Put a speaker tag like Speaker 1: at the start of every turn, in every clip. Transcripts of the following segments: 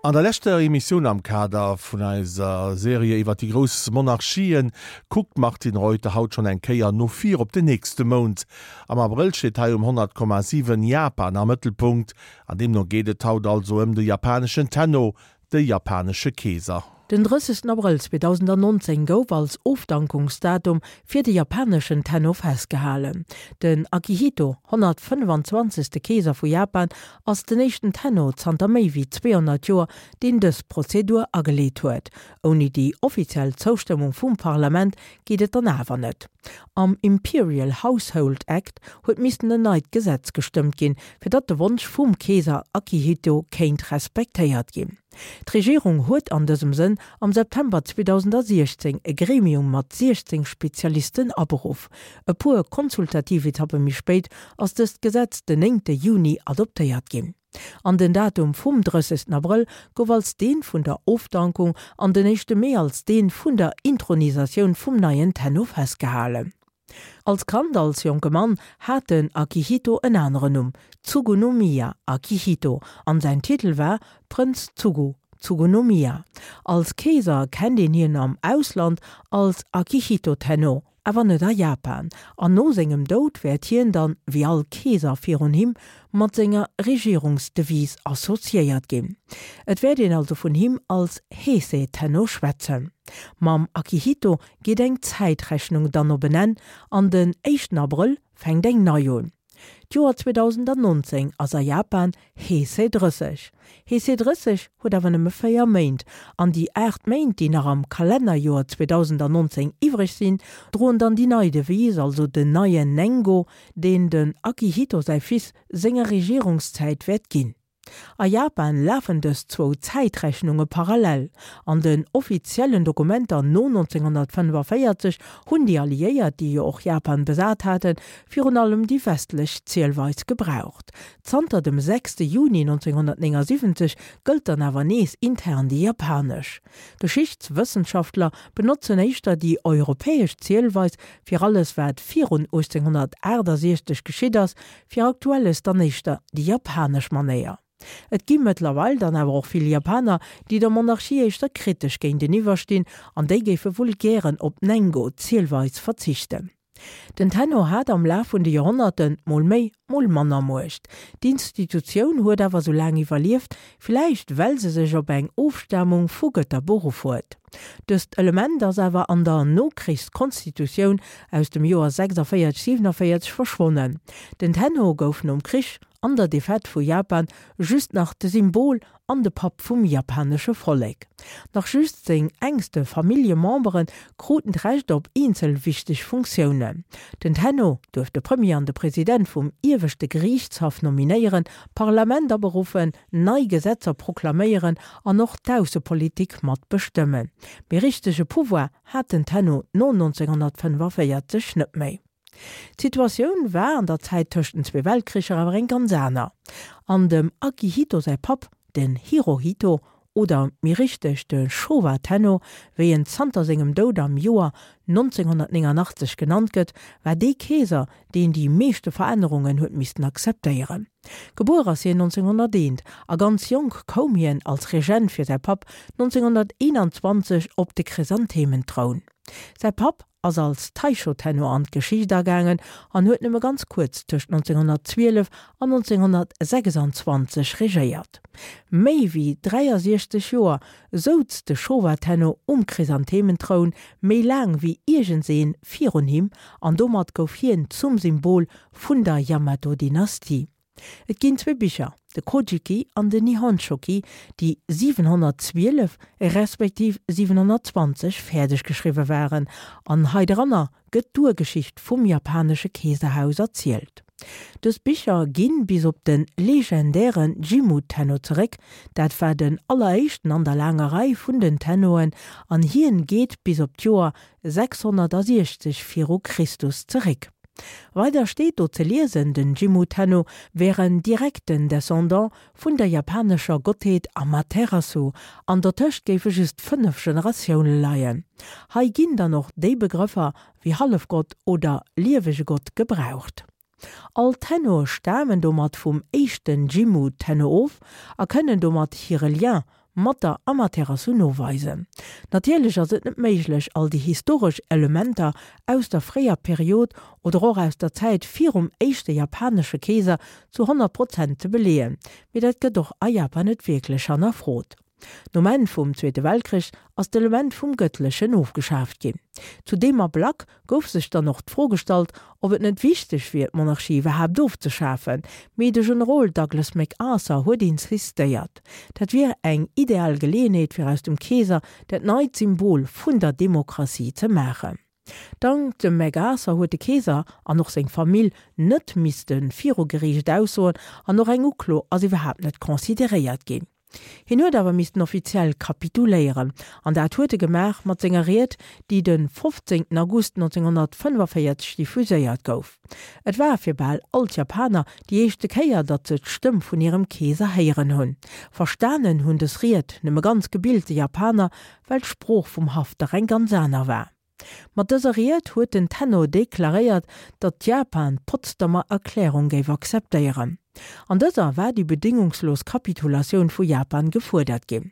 Speaker 1: An der leschter Emissioun am Kader vun eiser Serie iwwer déi grouss Monarchien kuckt d'Martine Reuter haut schonn eng Kéier no vir op den nächste Mount. Am Abrëll steet hei um 100,7 Japan am Mëttelpunkt an deemno geet et haut also ëm de japaneschen Tenno, de japanesche Keeser.
Speaker 2: Den 30 Abrëll 2019 gouf als Ofdankungsdatum fir de japaneschen Tenno festgehalen. Den Akihito, 125. Keeser vu Japan, ass den éischten Tenno zanter méi wéi 200 Joer, deen dës Prozedur ageleet huet. Ouni déi offiziell Zoustëmmung vum Parlament geet et dann awer net. Am Imperial Household Act huet missten en neit Gesetz gestëmmt ginn, fir datt de Wonsch vum Keeser Akihito kéint respektéiert ginn. D'Regierung huet an dësem Sënn am September 2016 e Gremium mat 16 Spezialisten aberuff. E puer konsultativ Etappe méi spéit ass dëst Gesetz den 9 Juni adoptéiert ginn. An den Datum vum 30 Abrëll gouf als deen vun der Ofdankung an den éischte Mee als deen vun der Intronisatioun vum neien Tenno festgehalen. Als Kand, als jonke Mann, hat den Akihito en aneren Numm, Tsugunomiya Akihito, an säin Titel war Prënz Tsugu, Tsugunomiya. Als Keeser kennt een hien am Ausland als Akihito Tenno, awer net a Japan, an no sengem Doud wäert hien dann, wéi all Keeser virun him, mat senger Regierungsdevise associéiert ginn. Et wäert een also vun him als Heisei Tenno schwätzen. Mam Akihito geet eng Zäitrechnung dann op en Enn an den éischten Abrëll fänkt eng nei un. D'Joer 2019 ass a Japan Heisei 30. Heisei 30 huet awer nëmme 4 Méint an déi 8 Méint, déi nach am Kalennerjoer 2019 iwwreg sinn, droen dann déi nei Devise, also den neien Nengo, deen den Akihito säi Fils senger Regierungszäit wäert ginn. A Japan lafen dës zwou Zäitrechnunge parallel. An den offiziellen Dokumenter no 1945 hunn déi Alliéiert, déi jo och Japan besat haten, virun allem déi westlech Zielweis gebraucht. Zanter dem 6 Juni 1979 gëllt dann awer nees intern déi japanesch. Geschichtswëssenschaftler benotzen éischter déi europäesch Zielweis fir alles wat virun 1868 geschitt ass, Fir Aktuelles dann éischter déi japanesch Manéier. Et gi mëttlerweil dann awer och vill Japaner, déi der Monarchie éischter kritesch géinteniwwer stinn an déi géife wuel gären op d'Nengo-Zielweis verzichten. Den Tenno hat am Laf vun de Joerhonnerten mol méi, mol manner Muecht. D'Institutioun huet awer sou laang iwwerlieft, villäicht well se sech op eng Ofstamung vu Gëtter beruff huet. Dëst Element ass awer an der Nokrichskonstitutioun aus dem Joer 46, 47 verschwonnen. Den Tenno gouf nom Krich an der Defaite vu Japan just nach de Symbol an de Papp vum japanesche Vollek. Nach just seng enkste Familljemembere kruten d'Recht op eenzel wichteg Funktiounen. Den Tenno duerft de Premier an de President vum Ieweschte Geriichtshaff nominéieren, d'Parlament aberuffen, nei Gesetzer proklaméieren an och d'Aussepolitik mat bestëmmen. Mee richtege Pouvoir hat den Tenno no 1945 net méi. D'Situatioun war an der Zäit tëscht den zwee Weltkricher awer eng ganz aner. An dem Akihito säi Papp, den Hirohito, oder méi richteg de Showa Tenno, wéi en zanter sengem Doud am Joer 1989 genannt gëtt, war dee Keeser, deen déi meeschte Verännerungen huet missten akzeptéieren. Gebuer ass hien 1901 a ganz jonk koum hien als Regent fir säi Papp 1921 op de Chrysanthementroun. Säi Papp ass als Taisho-Tenno an d'Geschicht agaangen an huet nëmme ganz kuerz tëscht 1912 an 1926 regéiert. Méi wéi 63 Joer souz de Showa-Tenno um Chrysanthementroun, méi laang wéi iergendseen virun him, an domat gouf hien zum Symbol vun der Yamato-Dynastie. Et ginn zwee Bicher, de Kojiki an den Nihonshoki, déi 712 respektiv 720 fäerdeg geschriwwe waren, an hei dranner gëtt d'Urgeschicht vum japanesche Keeserhaus erzielt. Dës Bicher ginn bis op de legendäre Jimmu Tenno zeréck, dat war den alleréischten an der laanger Rei vun den Tennoen, an hien geet bis op d'Joer 660 viru Christus zeréck. Weider steet do ze liesen, den Jimmu Tenno wär en direkten Descendant vun der japanescher Gottheet Amaterasu, an dertëscht géife just 5 Generatioune leien. Hei ginn dann och déi Begrëffer wéi Hallefgott oder liewege Gott gebraucht. All Tennoe stamen domat vum éischten Jimmu Tenno of a kënnen domat hire Lien. mat der Amaterasu noweisen. Natierlech ass et net méiglech, all déi historesch Elementer aus der fréier Period oder och aus der Zäit virum éischte japanesche Keeser zu 100 Prozent ze beleeën, mee dat gëtt och a Japan net wierklech hannerfrot. Nom Enn vum Zweete Weltkrich ass d'Element vum Gëttlechen ofgeschaaft ginn. Zu deem Ablack gouf sech dann och d'Fro gestallt, ob et net wichteg wier, d'Monarchie iwwerhaapt ofzeschafen. Mee de Generol Douglas MacArthur huet insistéiert, dat wier eng ideal Geleeënheet fir aus dem Keeser dat neit Symbol vun der Demokratie ze maachen. Dank dem MacArthur huet de Keeser an och seng Famill net misste viru Geriicht aussoen an och eng Uklo ass iwwerhaapt net consideréiert ginn. Hien huet awer missten offiziell kapituléieren an dat huet e gemaach mat senger Ried, déi de 15 August 1945 diffuséiert gouf. Et war fir bal all d'Japaner déi éischte Kéier, datt se d'Stëmm vun hirem Keeser héieren hunn. Verstanen hunn dës Ried nëmme ganz gebilte Japaner, well d'Sprooch vum Haff dach eng ganz aner war. Mat dëser Ried huet den Tenno deklaréiert, datt Japan d'Potsdamer Erklärung géif akzeptéieren. An dëser war déi bedéngungslos Kapitulatioun vu Japan gefuerdert ginn.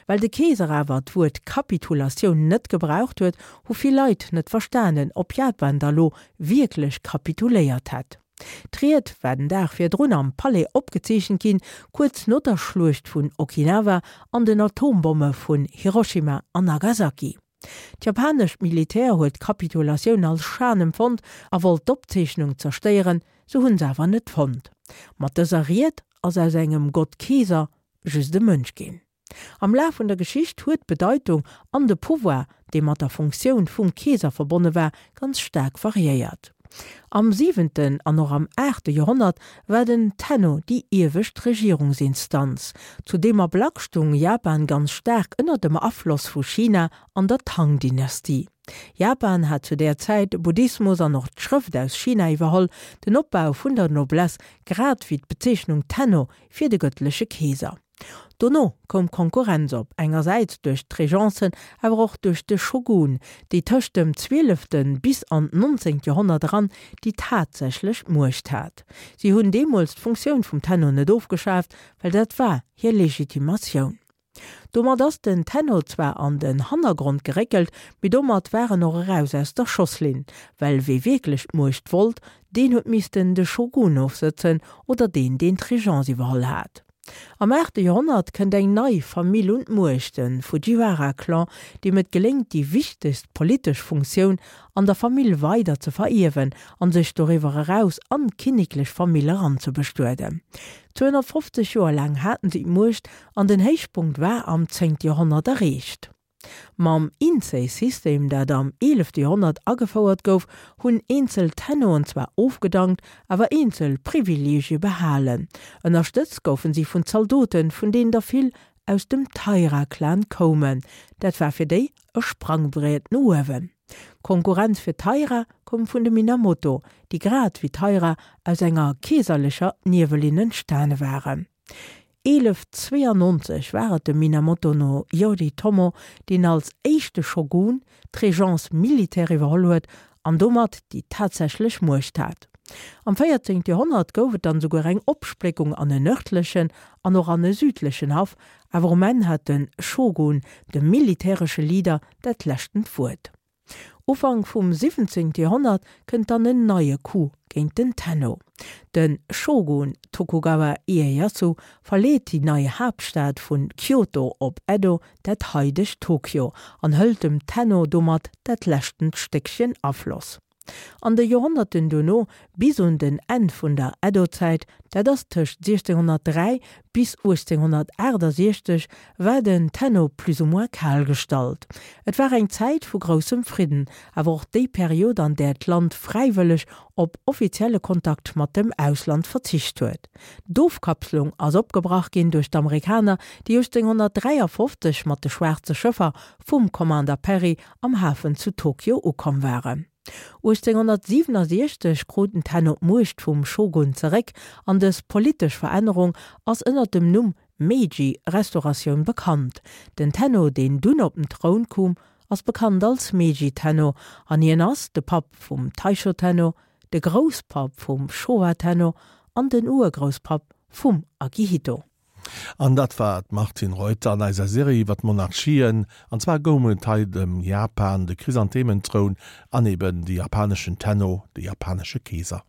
Speaker 2: Well de Keeser awer d'Wuert Kapitulatioun net gebraucht huet, hu vill Leit net verstanen, ob Japan da lo wierklech kapituléiert hätt. D'Ried war den Dag virdrun am Palais opgezeechent ginn, kuerz no der Schluecht vun Okinawa an den Atombomme vun Hiroshima an Nagasaki. D'japanescht Militär huet d'Kapitulatioun als Schan empfonnt a wollt d'Opzeechnung zerstéieren, se hunn se awer net fonnt. Mat dëser Ried ass aus engem Gott-Keeser just e Mënsch ginn. Am Laf vun der Geschicht huet d'Bedeitung an de Pouvoir, dee mat der Funktioun vum Keeser verbonne war, ganz staark variéiert. Am siwenten an och am aachte Joerhonnert war den Tenno déi iewescht Regierungsinstanz. Zu deem Ablack stung Japan ganz staark ënner dem Afloss vu China an der Tang-Dynastie. Japan hat zu där Zäit de Buddhismus an och d'Schrëft aus China iwwerholl, den Opbau vun der Noblesse grad wéi d'Bezeechnung Tenno fir de gëttleche Keeser. Dono koum Konkurrenz op, engersäits duerch d'Regencen, awer och duerch de Shogun, déi tëscht dem zwielefte bis an d'nonzéngt Joerhonnert eran déi tatsächlech Muecht hat. Si hunn deemools d'Funktioun vum Tenno net ofgeschaaft, well dat war hir Legitimatioun. Domat ass den Tenno zwar an den Hannergrond geréckelt, mee domat war en och eraus aus der Schosslinn, well wee wierklech d'Muecht wollt, deen huet missten de Shogun ofsëtzen oder deen, deen d'Regence iwwerholl hat. Am aachte Joerhonnert kënnt eng nei Famill un d'Muecht, de Fujiwara-Clan, deem et geléngt, déi wichtegst politesch Funktioun an der Famill weider ze verierwen an sech doriwwer eraus an d'kinneklech Famill eranzebestueden. 250 Joer laang haten si d'Muecht an den Héichpunkt war am zéngte Joerhonnert erreecht. Mam Insei-System, dat am eelefte Joerhonnert agefouert gouf, hunn eenzel Tennoen zwar ofgedankt, awer eenzel Privileegie behalen. Ënnerstëtzt goufen si vun Zaldoten, vun deenen der vill aus dem Taira-Clan koumen. Dat war fir déi e Sprangbriet no uewen. D'Konkurrenz fir d'Taira koum vun de Minamoto, déi grad wéi d'Taira aus enger keeserlecher Niewelinn entstane waren. 1192 war et de Minamoto no Yoritomo, deen als éischte Shogun d'Régence militaire iwwerholl huet an domat déi tatsächlech Muecht hat. Am 14. Joerhonnert gouf et dann esouguer eng Opspléckung an en nërdlechen an och an e südlechen Haff, awer um Enn hat de Shogun, de militäresche Leader, dat leschtent Wuert. Ufank vum 17. Joerhonnert kënnt dann en neie Coup géint den Tenno. De Shogun Tokugawa Ieyasu verleet déi nei Haaptstad vun Kyoto op Edo, dat haidegt Tokio, an hëlt dem Tenno domat dat leschtent Stéckchen Afloss. An de Joerhonnerten dono, bis un den Enn vun der Edo-Zäit, dat ass tëscht 1603 bis 1868, war den Tenno plus ou moins kal gestallt. Et war eng Zäit vu groussem Fridden, awer och déi Period, an där d'Land fräiwëlleg op offizielle Kontakt mat dem Ausland verzicht huet. D'Ofkapslung ass opgebrach ginn duerch d'Amerikaner, déi 1853 mat de schwaarze Schëffer vum Commander Perry am Hafen zu Tokio ukomm waren. 1867 krut den Tenno d'Muecht vum Shogun zeréck an dës politesch Verännerung ass ënner dem Numm Meiji-Restauratioun bekannt. Den Tenno, deen dunn op den Troun koum, ass bekannt als Meiji-Tenno an hien ass de Papp vum Taisho-Tenno, de Grousspapp vum Showa-Tenno an den Urgrousspapp vum Akihito.
Speaker 1: An dat war d'Martine Reuter an eiser Serie iwwer d'Monarchien. An zwar goung et hei ëm Japan, de Chrysanthementroun an eben de japaneschen Tenno, de japanesche Keeser.